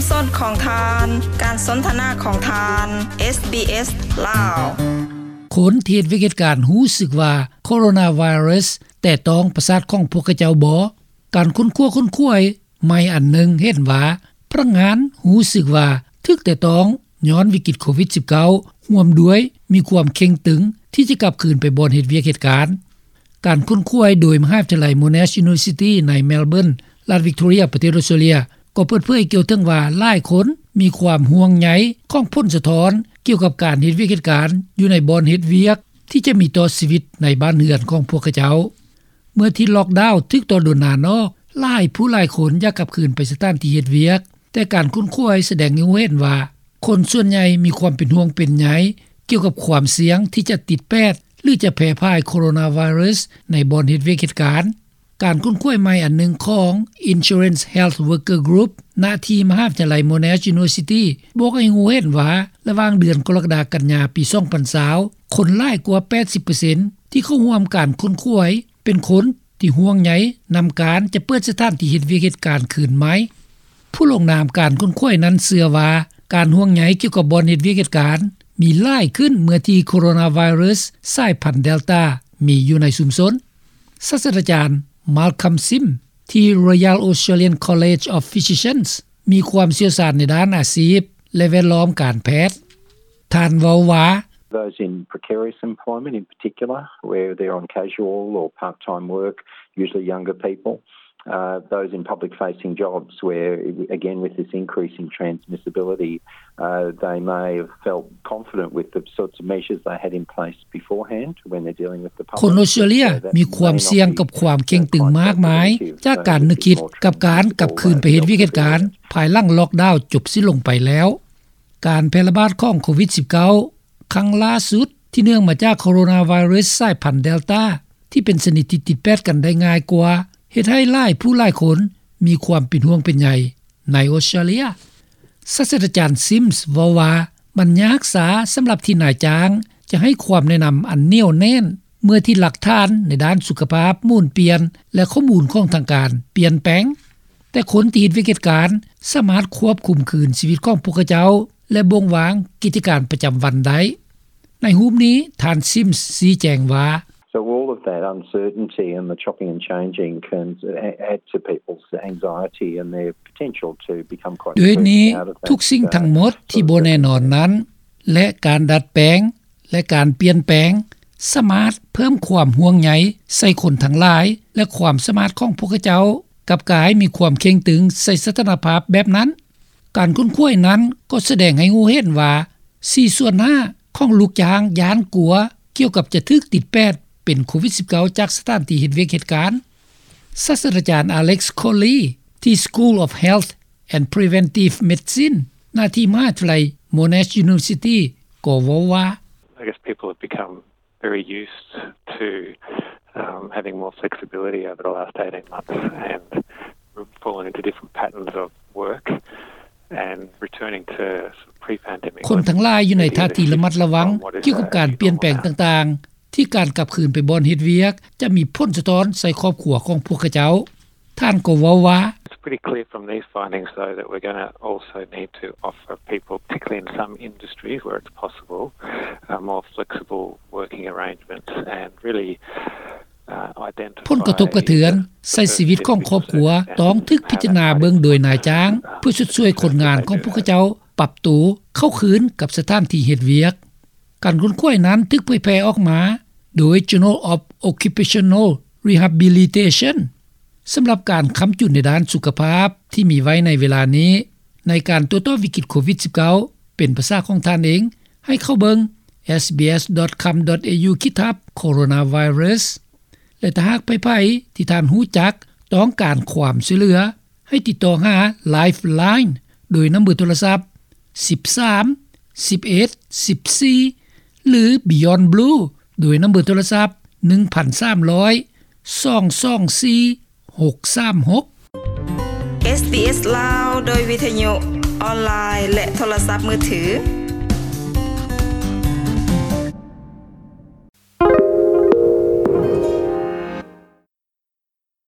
ສົດຂອງທ່ານ ການສົນທະນາຂອງທ່ານ ເອສບີເອສ ລາວ. ຄົນທີ່ເຮັດວຽກເຮັດການຮູ້ສຶກວ່າໂຄໂຣນາໄວຣັສແຕະຕ້ອງປະສາດຂອງພວກເຂົາເຈົ້າບໍ? ການຄົ້ນຄວ້າຄົ້ນຄວາຍໃໝ່ອັນໜຶ່ງເຫັນວ່າ ພະນັກງານຮູ້ສຶກວ່າຖືກແຕະຕ້ອງຍ້ອນວິກິດໂຄວິດສິບເກົ້າ ຮ່ວມດ້ວຍມີຄວາມເຄັ່ງຕຶງທີ່ຈະກັບຄືນໄປບ່ອນເຮັດວຽກເຮັດການ. ການຄົ້ນຄວ້າໂດຍມະຫາວິທະຍາໄລ Monash University ໃນ Melbourne ລັດ Victoria ປະເທດ Australia ກໍເປີດເຜີຍກ່ຽວເຖິງວ່າ ຫຼາຍຄົນມີຄວາມຫ່ວງໃຍຂອງຜົນສະທ້ອນກ່ຽວກັບການເຮັດວຽກເຮັດການຢູ່ໃນບ່ອນເຮັດວຽກ ທີ່ຈະມີຕໍ່ຊີວິດໃນບ້ານເຮືອນຂອງພວກເຂົາເຈົ້າ. ເມື່ອທີ່ລ໊ອກດາວຖືກຕໍ່ໂດນນານອອກ, ຫຼາຍຜູ້ຫຼາຍຄົນຢາກກັບຄືນໄປສະຖານທີ່ເຮັດວຽກ, ແຕ່ການຄົ້ນຄວ້າສະແດງໃຫ້ຮູ້ເຫັນວ່າ ຄົນສ່ວນໃຫຍ່ມີຄວາມເປັນຫ່ວງເປັນໃຍກ່ຽວກັບຄວາມສ່ຽງທີ່ຈະຕິດແປດ ຫຼື ຈະແຜ່ພາຍໂຄໂຣນາໄວຣັສໃນບ່ອນເຮັດວຽກເຮັດການ. ການຄົ້ນຄວ້າໃໝ່ອັນໜຶ່ງຂອງ Insurance Health Worker Group ນະທີ່ມະຫາວິທະຍາໄລ Monash University ບອກໃຫ້ຮູ້ເຫັນວ່າ ລະຫວ່າງເດືອນກໍລະກະດາ ກັນຍາ ປີສອງພັນຊາວ ຄົນຫຼາຍກວ່າ ແປດສິບເປີເຊັນ ທີ່ເຂົ້າຮ່ວມການຄົ້ນຄວ້າ ເປັນຄົນທີ່ຫ່ວງໃຍນຳການຈະເປີດສະຖານທີ່ເຮັດວຽກເຮັດການຄືນໃໝ່. ຜູ້ລົງນາມການຄົ້ນຄວ້ານັ້ນເຊື່ອວ່າ ການຫ່ວງໃຍກ່ຽວກັບບ່ອນເຮັດວຽກເຮັດການມີຫຼາຍຂຶ້ນ ເມື່ອທີ່ໂຄໂຣນາໄວຣັສສາຍພັນ Delta ມີຢູ່ໃນຊຸມຊົນ. ສາດສະດາຈານ Malcolm Sims ທີ່ Royal Australian College of Physicians ມີຄວາມຊ່ຽວຊານໃນດ້ານອາຊີບ ແລະ ແວດລ້ອມການແພດ. ທ່ານເວົ້າວ່າ: Those in precarious employment in particular, where they're on casual or part-time work, usually younger people, uh, those in public-facing jobs where, again, with this increase in transmissibility, uh, they may have felt confident with the sorts of measures they had in place beforehand when they're dealing with the public. ຄົນອອສເຕຣເລັຽມີຄວາມສ່ຽງກັບຄວາມເຄັ່ງຕຶງມາກມາຍຈາກການນຶກຄິດກັບການກັບຄືນໄປເຮັດວຽກເຮັດການ ພາຍຫຼັງລ໊ອກດາວຈົບສິ້ນລົງໄປແລ້ວ. ການແຜ່ລະບາດຂອງໂຄວິດສິບເກົ້າ ຄັ້ງລ່າສຸດທີ່ເນື່ອງມາຈາກໂຄໂຣນາໄວຣັສສາຍພັນ Delta ທີ່ເປັນຊະນິດທີ່ຕິດແປດກັນໄດ້ງ່າຍກວ່າ ເຮັດໃຫ້ຫຼາຍຜູ້ຫຼາຍຄົນມີຄວາມເປັນຫ່ວງເປັນໃຍໃນອອສເຕຣເລັຽ. ສາດສະດາຈານ Sims ເວົ້າວ່າ ມັນຍາກຊ້າສຳລັບທີ່ນາຍຈ້າງຈະໃຫ້ຄວາມແນະນຳອັນໜຽວແໜ້ນ ເມື່ອທີ່ຫຼັກຖານໃນດ້ານສຸຂະພາບໝູນປ່ຽນ ແລະ ຂໍ້ມູນຂອງທາງການປ່ຽນແປງ. ແຕ່ຄົນທີ່ເຮັດວຽກເຮັດການສາມາດຄວບຄຸມຄືນຊີວິດຂອງພວກເຂົາເຈົ້າ ແລະ ບົ່ງວາງກິດຈະການປະຈຳວັນໄດ້. ໃນຮູບນີ້ ທ່ານ Sims ຊີ້ແຈງວ່າ: So all of that uncertainty and the chopping and changing can add to people's anxiety and their potential to become quite depressed out of that. ດ້ວຍນີ້, ທຸກສິ່ງທັງໝົດທີ່ບໍ່ແນ່ນອນນັ້ນ ແລະ ການດັດແປງ ແລະ ການປ່ຽນແປງ ສາມາດເພີ່ມຄວາມຫ່ວງໃຍໃສ່ຄົນທັງຫຼາຍ ແລະ ຄວາມສາມາດຂອງພວກເຂົາເຈົ້າກັບກາຍມີຄວາມເຄັ່ງຕຶງໃສ່ສະຖານະພາບແບບນັ້ນ. ການຄົ້ນຄວ້ານັ້ນກໍສະແດງໃຫ້ຮູ້ເຫັນວ່າ ສີ່ສ່ວນຫ້າຂອງລູກຈ້າງຢ້ານກົວກ່ຽວກັບຈະຖືກຕິດແປດເປັນໂຄວິດສິບເກົ້າ ຈາກສະຖານທີ່ເຮັດວຽກເຮັດການ. ສາດສະດາຈານ Alex Coley ທີ່ School of Health and Preventive Medicine ນະທີ່ມະຫາວິທະຍາໄລ Monash University ກໍເວົ້າວ່າ: I guess people have become very used to, um, having more flexibility over the last eighteen months and fallen into different patterns of work and returning to pre-pandemic. ຄົນທັງຫຼາຍຢູ່ໃນທ່າທີລະມັດລະວັງກ່ຽວກັບການປ່ຽນແປງຕ່າງໆ ທີ່ການກັບຄືນໄປບ່ອນເຮັດວຽກຈະມີຜົນສະທ້ອນໃສ່ຄອບຄົວຂອງພວກເຂົາເຈົ້າ. ທ່ານກໍເວົ້າວ່າ: It's pretty clear from these findings, though, that we're gonna also need to offer people, particularly in some industries where it's possible, uh, more flexible working arrangements and really, uh, identify ຜົນກະທົບກະເທືອນໃສ່ຊີວິດຂອງຄອບຄົວ ຕ້ອງຖືກພິຈາລະນາເບິ່ງໂດຍນາຍຈ້າງ ເພື່ອຊົດຊ່ວຍຄົນງານຂອງພວກເຂົາເຈົ້າປັບໂຕເຂົ້າຄືນກັບສະຖານທີ່ເຮັດວຽກ. ການຄົ້ນຄວ້ານັ້ນຖືກເຜີຍແຜ່ອອກມາໂດຍ Journal of Occupational Rehabilitation. ສຳລັບການຄ້ຳຈຸນໃນດ້ານສຸຂະພາບທີ່ມີໄວ້ໃນເວລານີ້ ໃນການໂຕ້ຕອບວິກິດໂຄວິດສິບເກົ້າ ເປັນພາສາຂອງທ່ານເອງ ໃຫ້ເຂົ້າເບິ່ງ sbs.com.au ຂີດທັບ coronavirus ແລະ ຖ້າຫາກໃຜໆທີ່ທ່ານຮູ້ຈັກຕ້ອງການຄວາມຊ່ວຍເຫຼືອ ໃຫ້ຕິດຕໍ່ຫາ Lifeline ໂດຍນຳເບີໂທລະສັບ ສິບສາມ ສິບເອັດ ສິບສີ່ ຫຼື Beyond Blue ໂດຍນຳເບີໂທລະສັບ ໜຶ່ງພັນສາມຮ້ອຍ ສອງສອງສີ່ ຫົກສາມຫົກ. ເອສບີເອສ ລາວ ໂດຍວິທະຍຸ ອອນລາຍ ແລະ ໂທລະສັບມືຖື.